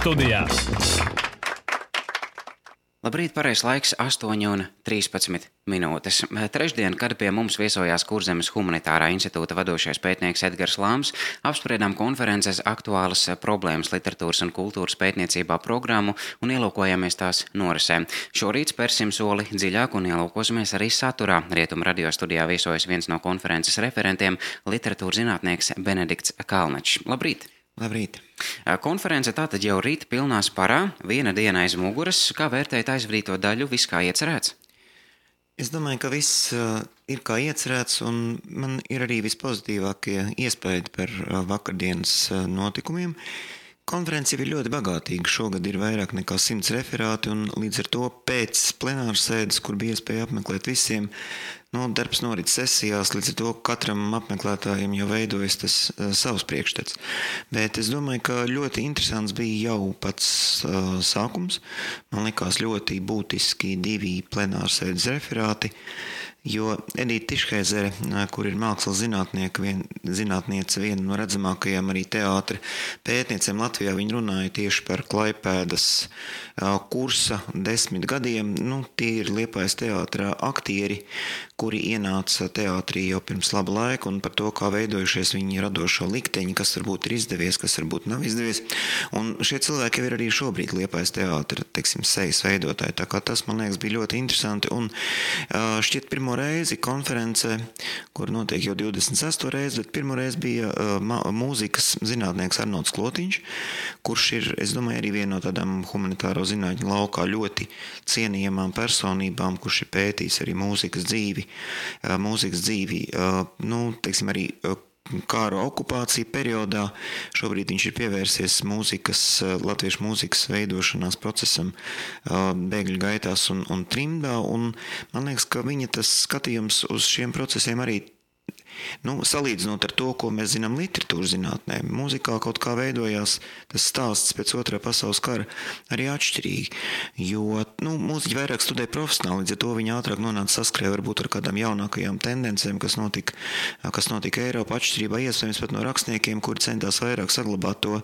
studijā. Labrīt, pareizs laiks 8:13. Trešdien, kad pie mums viesojās Kurzemes humanitārā institūta vadošais pētnieks Edgars Lāms, apspriedām konferences aktuālas problēmas literatūras un kultūras pētniecībā programmu un ielūkojāmies tās norisē. Šorīt spērsim soli dziļāk un ielūkosimies arī saturā. Rietumu radio studijā viesojas viens no konferences referentiem - literatūras zinātnieks Benedikts Kalnečs. Labrīt! Labrīt! Konference tātad jau rīt pilnā sparā, viena diena aiz muguras. Kā vērtējat aizvadīto daļu, viss kā iecerēts? Es domāju, ka viss ir kā iecerēts, un man ir arī vispozitīvākie iespaidi par vakardienas notikumiem. Konference ir ļoti bagātīga. Šogad ir vairāk nekā 100 referāti, un līdz ar to pēc plenāras sēdes, kur bija iespēja apmeklēt visiem, darbs norit sesijās, līdz ar to katram apmeklētājiem jau veidojas tas savs priekšstats. Bet es domāju, ka ļoti interesants bija jau pats sākums. Man likās ļoti būtiski 2 plenārsēdes referāti, jo Edita Tišheizere, kur ir mākslas zinātniece, viena no redzamākajām arī teātra pētniecēm Latvijā, viņa runāja tieši par Klaipēdas kursa 10 gadiem. Tie ir Liepājas teātra aktieri, kuri ienāca teātrī jau pirms laba laika, un par to, kā veidojušies viņi radošo likteņi, kas varbūt ir izdevies, kas varbūt nav izdevies. Un šie cilvēki jau ir arī šobrīd Liepājas teātra, sejas veidotāji. Tā kā tas, man liekas, bija ļoti interesanti. Un šķiet pirmo reizi konferencē, kur notiek jau 26. reizi, bet pirmo reizi bija mūzikas zinātnieks Arnolds Klotiņš, kurš ir, es domāju, arī viena no tādām humanitāro zinātņu laukā ļoti cienījamām personībām, kurš ir pētījis arī mūzikas dzīvi, arī kāra okupācija periodā. Šobrīd viņš ir pievērsies latviešu mūzikas veidošanās procesam bēgļu gaitās un trimdā, un man liekas, ka viņa tas skatījums uz šiem procesiem arī salīdzinot ar to, ko mēs zinām literatūras zinātnē, mūzikā kaut kā veidojās tas stāsts pēc Otrā pasaules kara arī atšķirīgi, jo mūziķi vairāk studē profesionāli, līdz ar to viņi ātrāk nonāca saskrē varbūt ar kādām jaunākajām tendencēm, kas notika Eiropā, atšķirībā iespējams pat no rakstniekiem, kuri centās vairāk saglabāt to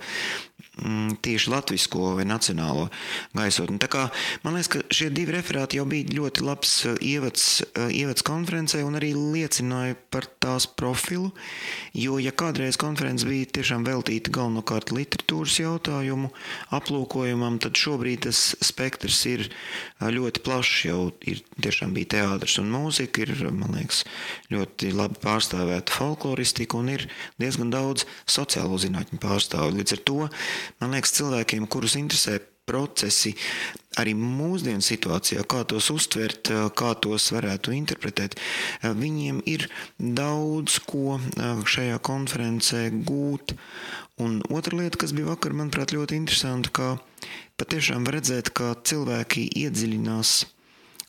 tieši latvisko vai nacionālo gaisotni. Tā kā man liekas, ka šie 2 referāti jau bija ļoti labs ievads konferencē un arī liecināja par tās profilu, jo ja kādreiz konference bija tiešām veltīta galvenokārt literatūras jautājumu aplūkojumam, tad šobrīd tas spektrs ir ļoti plašs, jau ir tiešām bija teātris un mūzika, ir, man liekas, ļoti labi pārstāvēta folkloristika un ir diezgan daudz sociālo zinātņu pārstāvju. Līdz ar to, man liekas, cilvēkiem, kurus interesē procesi arī mūsdienu situācijā, kā tos uztvert, kā tos varētu interpretēt, viņiem ir daudz ko šajā konferencē gūt. Un otra lieta, kas bija vakar, manuprāt, ļoti interesanti, kā patiešām redzēt, kā cilvēki iedziļinās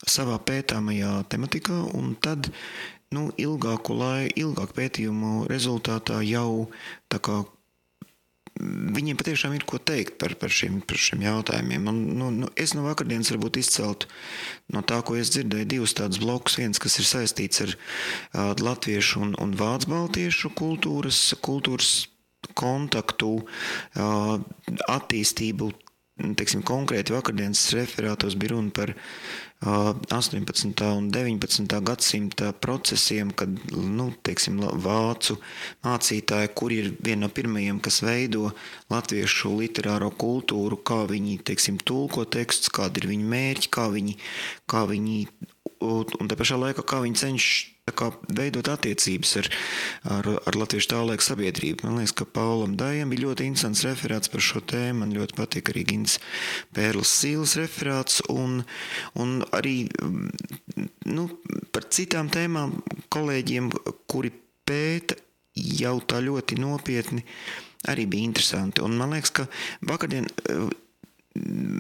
savā pētāmajā tematikā, un tad ilgāku pētījumu rezultātā jau tā kā viņiem patiešām ir ko teikt par šiem jautājumiem. Es no vakardienas varbūt izceltu no tā, ko es dzirdēju, 2 tādus blokus. Viens, kas ir saistīts ar latviešu un vācu baltiešu kultūras kontaktu, attīstību. Konkrēti vakardienas referātos bija runa par 18. un 19. gadsimta procesiem, kad, vācu mācītāji, kuri ir viena no pirmajiem, kas veido latviešu literāro kultūru, kā viņi, tulko tekstus, kādi ir viņu mērķi, kā viņi un tā pašā laikā, kā viņi cenšas veidot attiecības ar latviešu tā laika sabiedrību. Man liekas, ka Paulam Dājam bija ļoti interesants referāts par šo tēmu. Man ļoti patīk arī Gins Pērlis Sīles referāts un arī par citām tēmām kolēģiem, kuri pēta jau tā ļoti nopietni, arī bija interesanti. Un man liekas, ka vakardien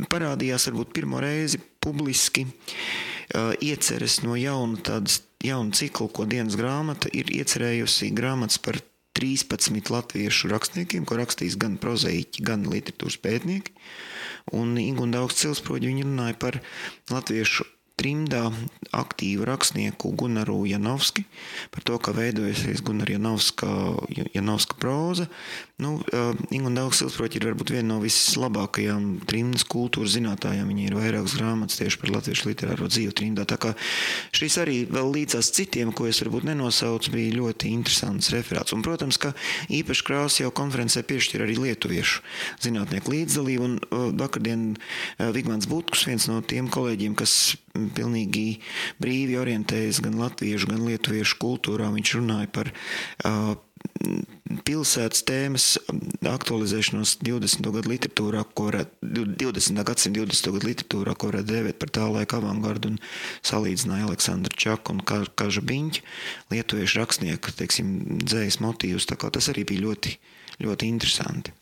parādījās varbūt pirmo reizi publiski ieceres no jaunu ciklu, ko dienas grāmata ir iecerējusi grāmatas par 13 latviešu rakstniekiem, ko rakstīs gan prozaiķi, gan literatūras pētnieki. Un Ingunda Augsts Cilsproģi viņi runāja par latviešu trimdā aktīvu rakstnieku Gunaru Janovski par to, kā veidojusies Gunara Janovska próza. Ingunda Augstsilsproķa ir varbūt viena no vislabākajām trimdas kultūras zinātājām. Viņa ir vairākas grāmatas tieši par latviešu literāro dzīvi trimdā. Tā kā šis arī vēl līdzās citiem, ko es varbūt nenosaucu, bija ļoti interesants referāts. Un, protams, ka īpaši krāsu jau konferencē piešķir arī lietuviešu zinātnieku līdzdalību. Un vakardien Vigmants Butkus, viens no tiem kolēģiem, kas pilnīgi brīvi orientējas gan latviešu, gan lietuviešu kultūrā. Viņš runāja par pilsētas tēmas aktualizēšanos 20. gadu literatūrā, 20. gadsimta 20. gadu literatūrā, ko varētu dēvēt par tā laika avangardu, un salīdzināja Aleksandru Čaku un Kaža Biņķu, lietuviešu rakstnieku, dzējas motīvus. Tā kā tas arī bija ļoti, ļoti interesanti.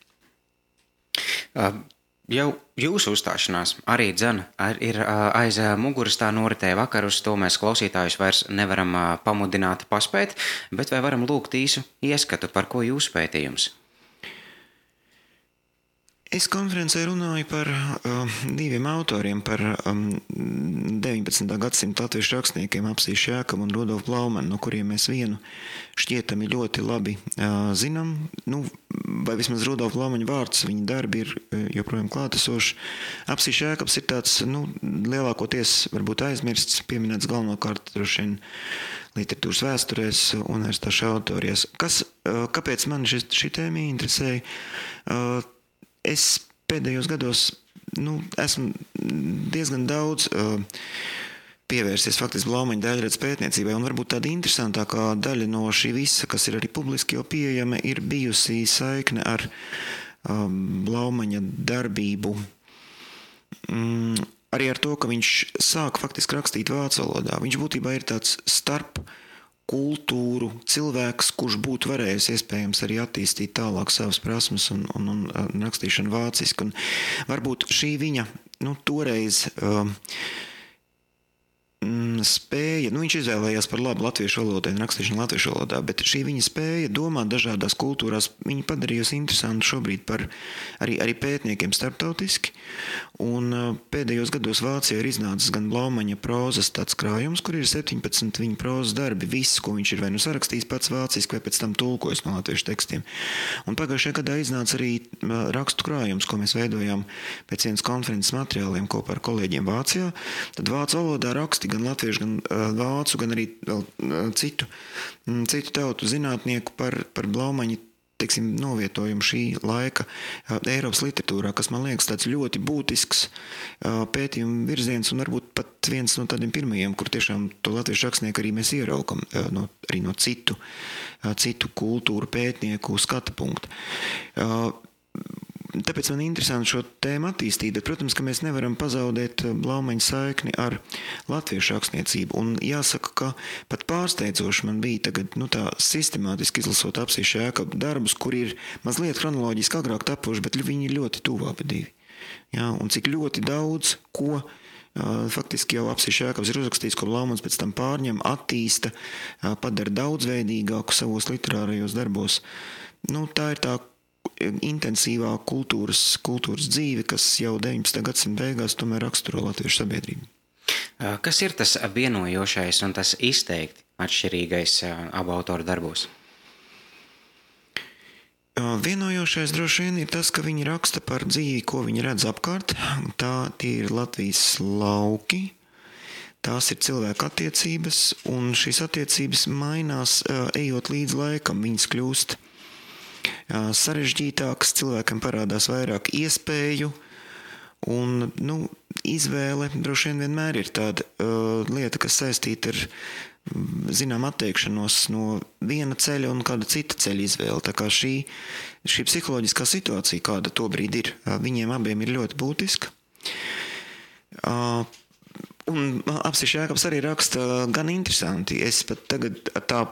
Jau jūsu uzstāšanās arī ir aiz muguras tā noritēja vakar, uz to mēs klausītājus vairs nevaram pamudināt paspēt, bet vai varam lūgt īsu ieskatu, par ko jūsu pētījums? Es konferencē runāju par diviem autoriem, par 19. gadsimta latviešu rakstniekiem Apsīšu Jēkabu un Rudolfu Blaumanu, no kuriem mēs vienu šķietami ļoti labi zinām. Vai vismaz Rudolfa Blaumaņa vārds, viņa darbi ir joprojām klātesoši. Apsīšu Jēkabs ir tāds, lielākoties varbūt aizmirsts, pieminēts galvenokārt droši vien literatūras vēsturēs, universitāšu autorijās. Kāpēc man šī tēma interesēja? Es pēdējos gados esmu diezgan daudz pievērsies faktiski Blaumaņa daļradas pētniecībai, un varbūt tāda interesantākā daļa no šī visa, kas ir arī publiski jau pieejama, ir bijusi saikne ar Blaumaņa darbību. Arī ar to, ka viņš sāk faktiski rakstīt vācu valodā. Viņš būtībā ir tāds starp kultūru cilvēks, kurš būtu varējis iespējams arī attīstīt tālāk savas prasmes un rakstīšanu vāciski. Un varbūt šī viņa toreiz spēja, viņš izvēlējās par labu latviešu valodai un rakstīšanu latviešu valodā, bet šī viņa spēja domāt dažādās kultūrās, viņa padarījusi interesantu šobrīd par arī pētniekiem starptautiski. Un pēdējos gados Vācijā ir iznācis gan Blaumaņa prózas tāds krājums, kur ir 17 viņa prózas darbi, viss, ko viņš ir vai sarakstījis pats vāciski, vai pēc tam tulkojis no latviešu tekstiem. Un pagājušajā gadā iznāca arī rakstu krājums, ko mēs veidojām pēc vienas konferences materiāliem kopā ar kolēģiem Vācijā. Tad vācu valodā raksti gan latviešu, gan vācu, gan arī citu tautu zinātnieku par Blaumaņa novietojumu šī laika Eiropas literatūrā, kas man liekas tāds ļoti būtisks pētījuma virziens un varbūt pat viens no tādiem pirmajiem, kur tiešām to latviešu rakstnieku arī mēs ieraugam arī no citu kultūru pētnieku skatu punktu. Tāpēc man interesanti šo tēmu attīstīt, bet, protams, ka mēs nevaram pazaudēt Blaumaņa saikni ar latviešu rakstniecību. Un jāsaka, ka pat pārsteidzoši man bija tagad tā sistemātiski izlasot Apsīšu Jēkabu darbus, kur ir mazliet kronoloģiski agrāk tapuši, bet viņi ir ļoti tuvu abi divi. Ja, un cik ļoti daudz, ko faktiski jau Apsīšu Jēkabs ir uzrakstījis, ko Blaumans pēc tam pārņem, attīsta, padara daudzveidīgāku savos literārajos darbos. Tā ir tā intensīvā kultūras dzīve, kas jau 19. gadsimta beigās tomēr raksturo latviešu sabiedrību. Kas ir tas vienojošais un tas izteikti atšķirīgais abu autoru darbos? Vienojošais droši vien ir tas, ka viņi raksta par dzīvi, ko viņi redz apkārt. Tie ir Latvijas lauki, tās ir cilvēku attiecības, un šīs attiecības mainās, ejot līdz laikam, viņas kļūst sarežģītāks, cilvēkam parādās vairāk iespēju, un izvēle droši vien vienmēr ir tāda lieta, kas saistīta ar atteikšanos no viena ceļa un kāda cita ceļa izvēle. Tā kā šī psiholoģiskā situācija, kāda tobrīd ir, viņiem abiem ir ļoti būtiska. Un Apsīšu Jēkabs arī raksta gan interesanti. Es pat tagad tā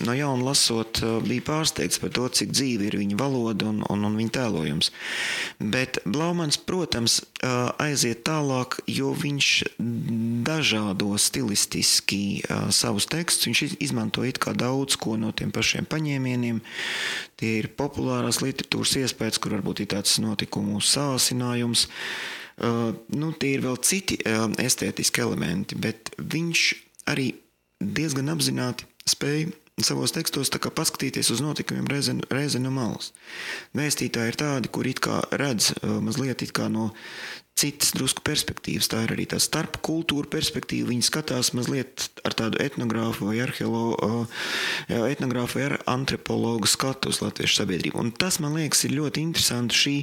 no jauna lasot, bija pārsteigts par to, cik dzīvi ir viņa valoda un viņa tēlojums. Bet Blaumans, protams, aiziet tālāk, jo viņš dažādo stilistiski savus tekstus. Viņš izmanto it kā daudz ko no tiem pašiem paņēmieniem. Tie ir populārās literatūras iespējas, kur varbūt ir tāds notikumu sāsinājums. Tie ir vēl citi estētiski elementi, bet viņš arī diezgan apzināti spēja savos tekstos tā kā paskatīties uz notikumiem reizi no malas. Vēstītāji ir tādi, kur it kā redz mazliet it kā no citas drusku perspektīvas. Tā ir arī tā starp kultūra perspektīva. Viņi skatās mazliet ar tādu etnogrāfu vai etnogrāfu vai antropologu skatu uz latviešu sabiedrību. Un tas, man liekas, ir ļoti interesanti šī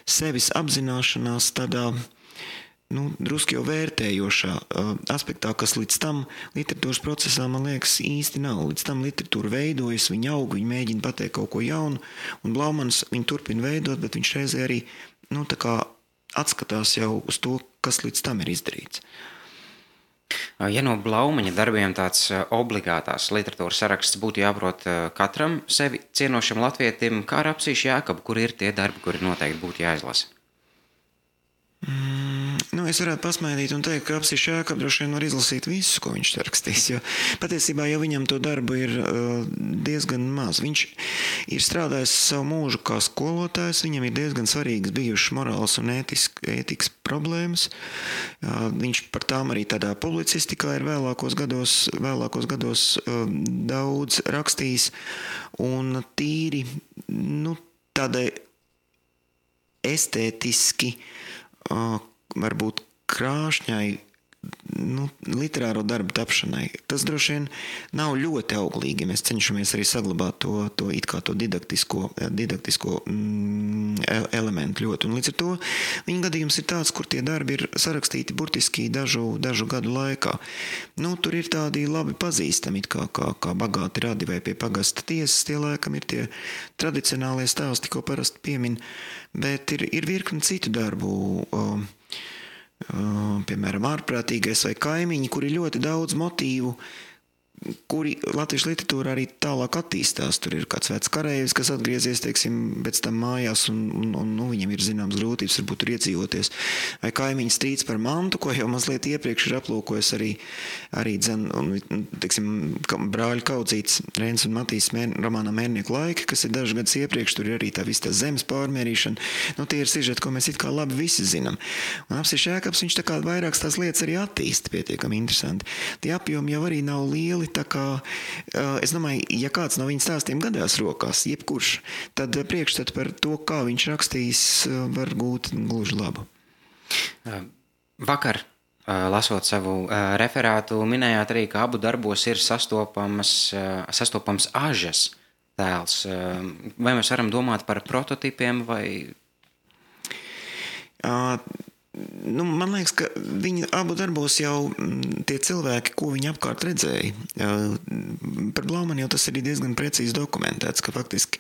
sevis apzināšanās tādā drusku jau vērtējošā aspektā, kas līdz tam literatūras procesā, man liekas, īsti nav. Līdz tam literatūra veidojas, viņa aug, viņa mēģina pateikt kaut ko jaunu, un Blaumans viņu turpina veidot, bet viņš reizē arī tā kā atskatās jau uz to, kas līdz tam ir izdarīts. Ja no Blaumaņa darbiem tāds obligātās literatūras saraksts būtu jāprot katram sevi cienošam latvietim, kā ar Apsīšu Jēkabu, kur ir tie darbi, kuri noteikti būtu jāizlasa? Es varētu pasmaidīt un teikt, ka Apsīšu Jēkabu droši vien var izlasīt visu, ko viņš rakstīs, jo patiesībā jau viņam to darbu ir diezgan maz. Viņš ir strādājis savu mūžu kā skolotājs, viņam ir diezgan svarīgas bijušas morāls un ētikas problēmas. Viņš par tām arī tādā publicistikā ir vēlākos gados daudz rakstījis, un tīri tādai estētiski varbūt krāšņai literāro darbu tapšanai. Tas droši vien nav ļoti auglīgi. Mēs cenšamies arī saglabāt to it kā to didaktisko elementu ļoti. Un līdz ar to viņa gadījums ir tāds, kur tie darbi ir sarakstīti burtiski dažu gadu laikā. Tur ir tādi labi pazīstami, kā bagāti radi vai pie pagasta tiesas, tie laikam ir tie tradicionālie stāsti, ko parasti piemin, bet ir virkni citu darbu, piemēram, ārprātīgais vai kaimiņi, kur ir ļoti daudz motīvu, kuri latviešu literatūra arī tālāk attīstās. Tur ir kāds vecs kareivs, kas atgriezies, pēc tam mājās, un viņam ir zināms grūtības, varbūt tur iedzīvoties. Vai kaimiņu strīds par mantu, ko jau mazliet iepriekš ir aplūkojis arī brāļu kaudzīts Rēns un Matīs romānā Mērnieku laiki, kas ir dažus gadus iepriekš, tur ir arī tā visa tā zemes pārmērīšana. Tie ir sižeti, ko mēs it kā labi visi zinām. Un Apsīšu Jēkabs, viņš tā kā vairākas tās lietas arī attīsta pietiekami interesanti. Tie apjomi jau arī nav lieli, tā kā, es domāju, ja kāds no viņa stāstiem gadās rokās, jebkurš, tad priekšstats par to, kā viņš rakstīs, var gūt gluži labu. Vakar, lasot savu referātu, minējāt arī, ka abu darbos ir sastopams ažas tēls. Vai mēs varam domāt par prototipiem vai... Man liekas, ka viņa abu darbos jau tie cilvēki, ko viņi apkārt redzēja. Par Blaumanu jau tas ir diezgan precīzi dokumentēts, ka faktiski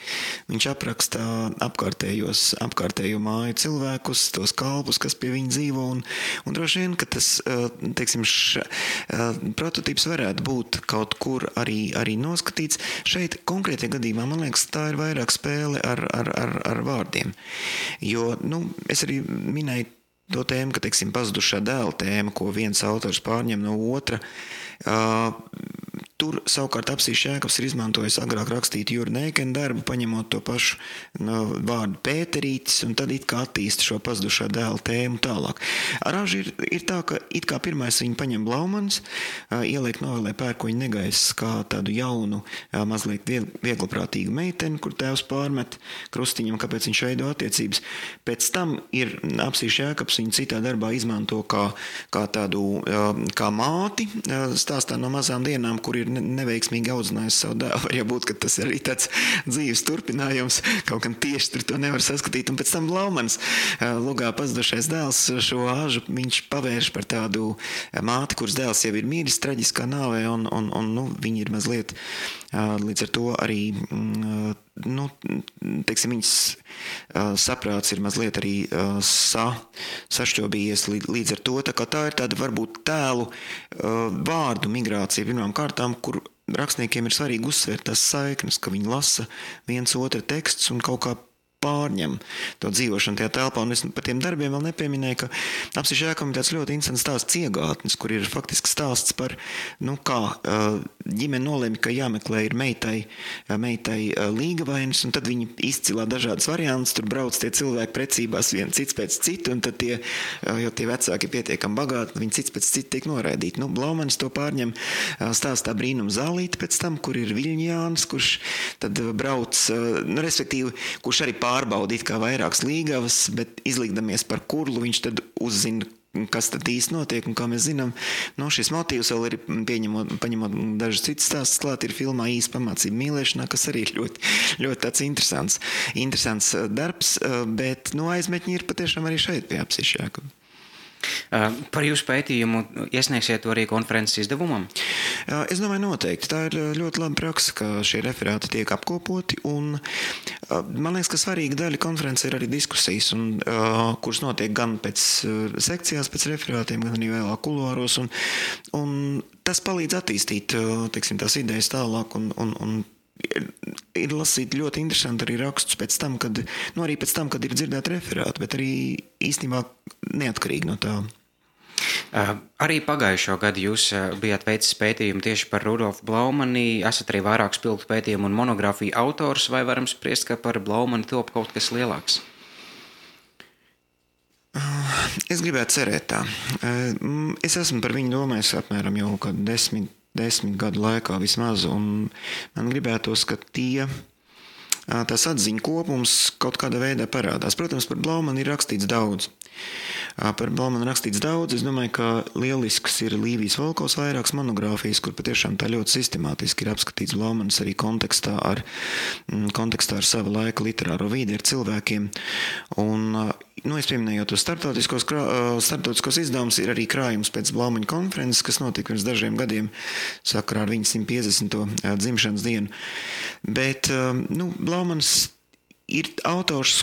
viņš apraksta apkārtējo māju cilvēkus, tos kalpus, kas pie viņa dzīvo, un droši vien, ka tas, prototips varētu būt kaut kur arī noskatīts. Šeit konkrētajā gadījumā, man liekas, tā ir vairāk spēle ar vārdiem. Jo, es arī minēju to tēmu, ka, pazudušā dēla tēma, ko viens autors pārņem no otra. Tur savukārt Apsīšu Jēkabs ir izmantojis agrāk rakstīt Jura Neikena darbu, paņemot to pašu vārdu Pēterītis, un tad it kā attīsta šo pazudušā dēla tēmu tālāk. Ar ažu ir tā, ka it kā pirmais viņu paņem Blaumans, ieliek novelē Pērkoņa negaiss kā tādu jaunu, mazliet viegliprātīgu meiteni, kur tēvs pārmet krustiņam, kāpēc viņš veido attiecības. Pēc tam ir Apsīšu Jēkabs viņu citā darbā izmanto kā tādu, kā māti, stāstā no mazām dienām, kur ir neveiksmīgi audzinājusi savu dēlu. Var jau būt, ka tas ir arī tāds dzīves turpinājums, kaut gan tieši tur to nevar saskatīt. Un pēc tam Blaumans lugā pazudušais dēls šo ažu viņš pavērš par tādu māti, kuras dēls jau ir miris traģiskā nāvē, un viņi ir mazliet līdz ar to arī viņas saprāts ir mazliet arī sašķobījies līdz ar to. Tā ir tāda varbūt tēlu vārdu migrācija pirmām kārtām, kur rakstniekiem ir svarīgi uzsvērt tās saiknes, ka viņi lasa viens otra teksts un kaut kā pārņem to dzīvošanu tajā telpā, un es par tiem darbiem vēl nepieminēju, ka Apsiša ēkam ir tāds ļoti interesants stāsts Ciegātnes, kur ir faktiski stāsts par, kā ģimene nolēma, ka jāmeklē ir meitai līgavainis, un tad viņi izcilā dažādas variantus, tur brauc tie cilvēki precībās viens cits pēc citu, un tad jo tie vecāki ir pietiekami bagāti, viņi cits pēc citu tiek noraidīti. Blaumanis to pārņem stāstā Brīnum zālīti pēc tam, kur ir Viļņjāns, kurš tad brauc, respektīvi, kurš arī pārbaudīt kā vairākas līgavas, bet izlikdamies par kurlu, viņš tad uzzina, kas tad īsti notiek, un kā mēs zinām, šis motīvs vēl ir paņemot dažas citas stāstus klāt, ir filmā Īsa pamācība mīlēšanā, kas arī ir ļoti, ļoti tāds interesants darbs, bet aizmetņi ir patiešām arī šeit pie Apsiša ēkām. Par jūsu pētījumu iesniegsiet to arī konferences izdevumam? Es domāju noteikti. Tā ir ļoti laba praksa, ka šie referāti tiek apkopoti, un man liekas, ka svarīga daļa konferences ir arī diskusijas, kuras notiek gan pēc sekcijās, pēc referātiem, gan arī vēlāk kuluāros, un tas palīdz attīstīt, teiksim, tās idejas tālāk, un ir lasīt ļoti interesanti arī rakstus pēc tam, kad ir dzirdēti referāti, bet arī īstenībā neatkarīgi no tā. Arī pagājušo gadu jūs bijāt veicis pētījumu tieši par Rudolfu Blaumani, esat arī vairāk spilgtu pētījumu un monogrāfiju autors, vai varam spriest, ka par Blaumani top kaut kas lielāks? Es gribētu cerēt tā. Es esmu par viņu domājis apmēram jau kādu 10 gadu laikā vismaz, un man gribētos, ka tās atziņu kopums kaut kādā veidā parādās. Protams, par Blaumani ir rakstīts daudz. Es domāju, ka lielisks ir Līvijas Volkovs vairākas monogrāfijas, kur patiešām tā ļoti sistemātiski ir apskatīts Blaumanis arī kontekstā ar sava laika literāro vīdi, ar cilvēkiem. Un, es pieminējot tos starptautiskos izdevumus, ir arī krājums pēc Blaumaņa konferences, kas notika pirms dažiem gadiem sakarā ar viņa 150. Dzimšanas dienu. Bet, Blaumanis ir autors,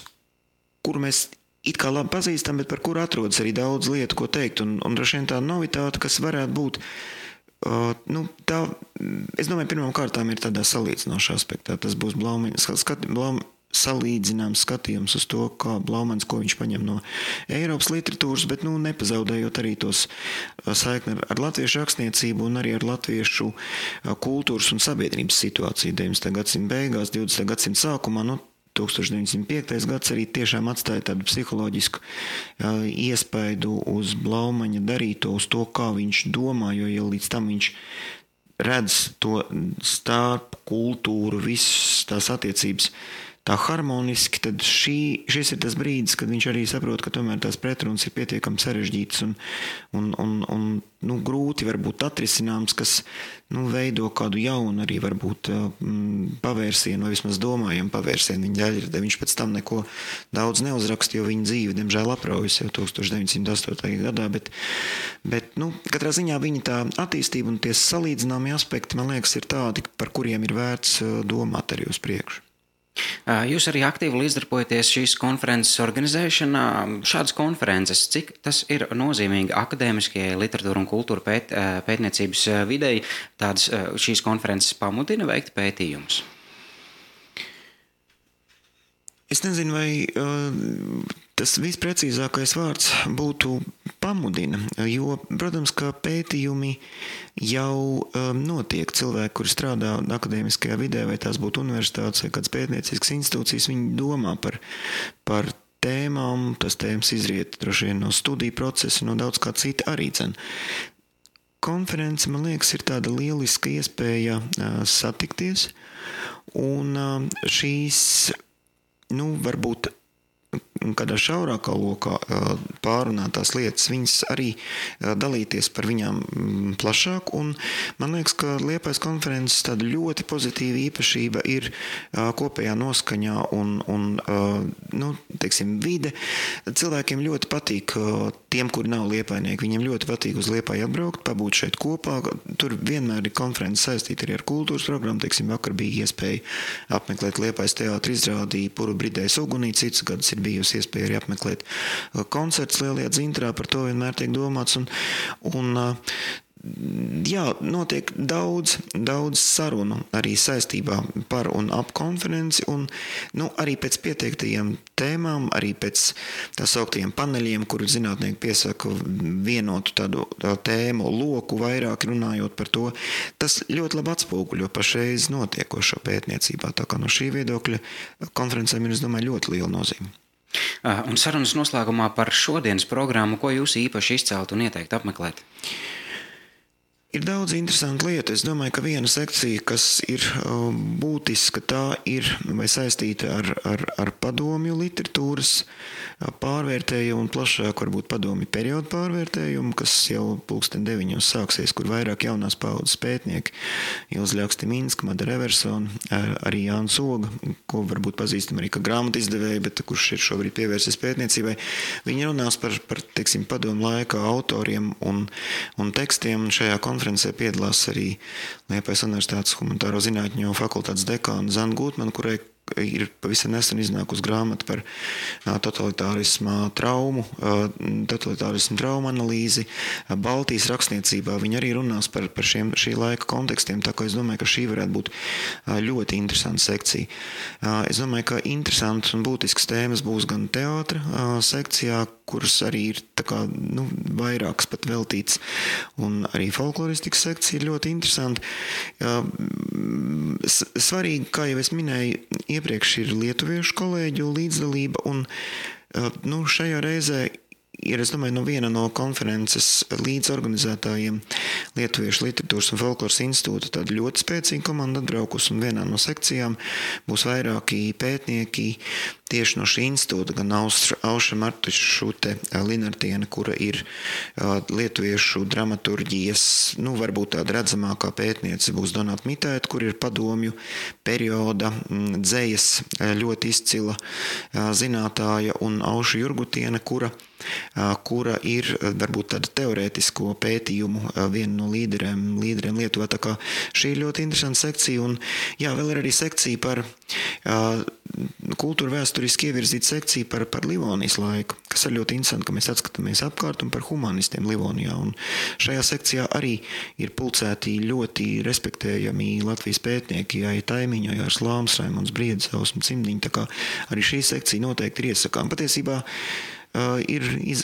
kuru mēs it kā labi pazīstam, bet par kuru atrodas arī daudz lietu, ko teikt, un droši vien tā novitāte, kas varētu būt, es domāju, pirmām kārtām ir tādā salīdzinošā aspektā. Tas būs salīdzināms skatījums uz to, kā Blaumanis, ko viņš paņem no Eiropas literatūras, bet nepazaudējot arī tos saikni ar latviešu rakstniecību un arī ar latviešu kultūras un sabiedrības situāciju 19. gadsimta beigās, 20. gadsimta sākumā, 1905. gads arī tiešām atstāja tādu psiholoģisku iespaidu uz Blaumaņa darīto, uz to, kā viņš domā, jo jau līdz tam viņš redz to starp kultūru, visas tās attiecības tā harmoniski, tad šis ir tas brīdis, kad viņš arī saprot, ka tomēr tās pretrunas ir pietiekami sarežģītas un grūti varbūt atrisināms, kas veido kādu jaunu arī varbūt pavērsienu, vai vismaz domājumu pavērsienu viņa ģeļradē. Viņš pēc tam neko daudz neuzraksta, jo viņa dzīve, diemžēl, apraujas jau 1908. gadā, bet katrā ziņā viņa tā attīstība un tie salīdzināmie aspekti, man liekas, ir tādi, par kuriem ir vērts domāt arī uz priekšu. Jūs arī aktīvi līdzdarbojaties šīs konferences organizēšanā. Šādas konferences, cik tas ir nozīmīgi akadēmiskajai literatūra un kultūra pētniecības videi, šīs konferences pamudina veikt pētījumus? Es nezinu, vai tas visprecīzākais vārds būtu pamudina, jo, protams, ka pētījumi jau notiek. Cilvēki, kuri strādā akadēmiskajā vidē, vai tās būtu universitātes vai kādas pētnieciskas institūcijas, viņi domā par tēmām, tas tēmas izriet droši vien no studiju procesa, no daudz kā cita arī dzen. Konference, man liekas, ir tāda lieliska iespēja satikties, un šīs varbūt kādā šaurākā lokā pārunātās lietas, viņas arī dalīties par viņām plašāk, un man liekas, ka Liepājas konferences tāda ļoti pozitīva īpašība ir kopējā noskaņā un teiksim, vide. Cilvēkiem ļoti patīk, tiem, kuri nav liepājnieki, viņiem ļoti patīk uz Liepāju atbraukt, pabūt šeit kopā. Tur vienmēr ir konferences saistīta arī ar kultūras programmu. Teiksim, vakar bija iespēja apmeklēt Liepājas teātra izrādi Puru bridējas ugunī, citus gadus ir bijusi iespēja arī apmeklēt koncerts Lielajā Dzintrā, par to vienmēr tiek domāts. Un Jā, notiek daudz sarunu arī saistībā par un ap konferenci, un arī pēc pieteiktajiem tēmām, arī pēc tā sauktiem paneļiem, kur zinātnieki piesaka vienotu tādu tēmu loku, vairāk runājot par to. Tas ļoti labi atspoguļo pašreiz notiekošo pētniecībā, tā kā no šī viedokļa konferencēm ir, es domāju, ļoti liela nozīme. Un sarunas noslēgumā par šodienas programmu, ko jūs īpaši izceltu un ieteiktu apmeklēt? Ir daudz interesantu lietu. Es domāju, ka viena sekcija, kas ir būtiska, tā ir vai saistīta ar padomju literatūras pārvērtējumu un plašāk varbūt padomju periodu pārvērtējumu, kas jau 9:00 sāksies, kur vairāk jaunās paudzes pētnieki, Ilze Ļakstiminska, Madara Eversona, arī Jānis Oga, ko varbūt pazīstam arī kā grāmatu izdevēju, bet kurš ir šobrīd pievērsies pētniecībai. Viņi runās par teiksim, padomu laika autoriem un tekstiem, un šajā konferencē piedalās arī Liepājas Universitātes humanitāro zinātņu fakultātes dekāna Zana Gutmana, kurai ir pavisam nesen iznākusi grāmata par totalitārismu traumu analīzi. Baltijas rakstniecībā viņi arī runās par šī laika kontekstiem, tā kā es domāju, ka šī varētu būt ļoti interesanta sekcija. Es domāju, ka interesantas un būtiskas tēmas būs gan teātra sekcijā, kuras arī ir tā kā, vairākas pat veltīts, un arī folkloristikas sekcija ir ļoti interesanta. Svarīgi, kā jau es minēju, iepriekš ir lietuviešu kolēģu līdzdalība, un šajā reizē ir, es domāju, viena no konferences līdzorganizētājiem Lietuviešu literatūras un folkloras institūta tāda ļoti spēcīga komanda atbraukus, un vienā no sekcijām būs vairāki pētnieki tieši no šī institūta, gan Aušra Martušute Linartiene, kura ir lietuviešu dramaturģijas, varbūt tāda redzamākā pētniece, būs Donata Mitaita, kur ir padomju perioda dzejas ļoti izcila zinātāja, un Auša Jurgutiene, kura ir varbūt tāda teorētisko pētījumu viena no līderiem Lietuvā. Tā kā šī ir ļoti interesanta sekcija, un vēl ir arī sekcija par kultūra vēsturiski ievirzīta sekcija par Livonijas laiku, kas ir ļoti interesanti, ka mēs atskatāmies apkārt un par humanistiem Livonijā. Un šajā sekcijā arī ir pulcēti ļoti respektējami Latvijas pētnieki, Jāja Taimiņa, Jārs Lāms, Raimonds Briedis, Ausma Cimdiņa, tā kā arī šī sekcija noteikti ir iesakām. Patiesībā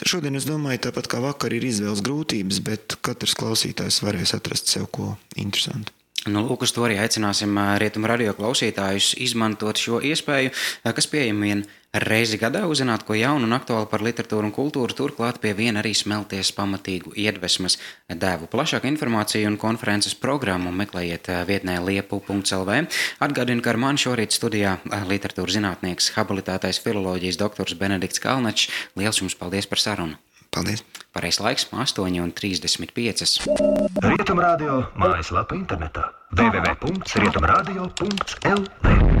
šodien, es domāju, tāpat kā vakar ir izvēles grūtības, bet katrs klausītājs varēs atrast sev ko interesantu. Lūk, uz to arī aicināsim Rietumu radio klausītājus izmantot šo iespēju, kas pieejama vien reizi gadā, uzzināt ko jaunu un aktuālu par literatūru un kultūru, turklāt pie viena arī smelties pamatīgu iedvesmas devu. Plašāku informāciju un konferences programmu meklējiet vietnē liepu.lv. Atgādinu, ka ar mani šorīt studijā literatūras zinātnieks, habilitētais filoloģijas doktors Benedikts Kalnačs. Liels jums paldies par sarunu! Paldies! Pareizs laiks 8:35. Rietumu radio mājaslapa internetā www.rietumradio.lv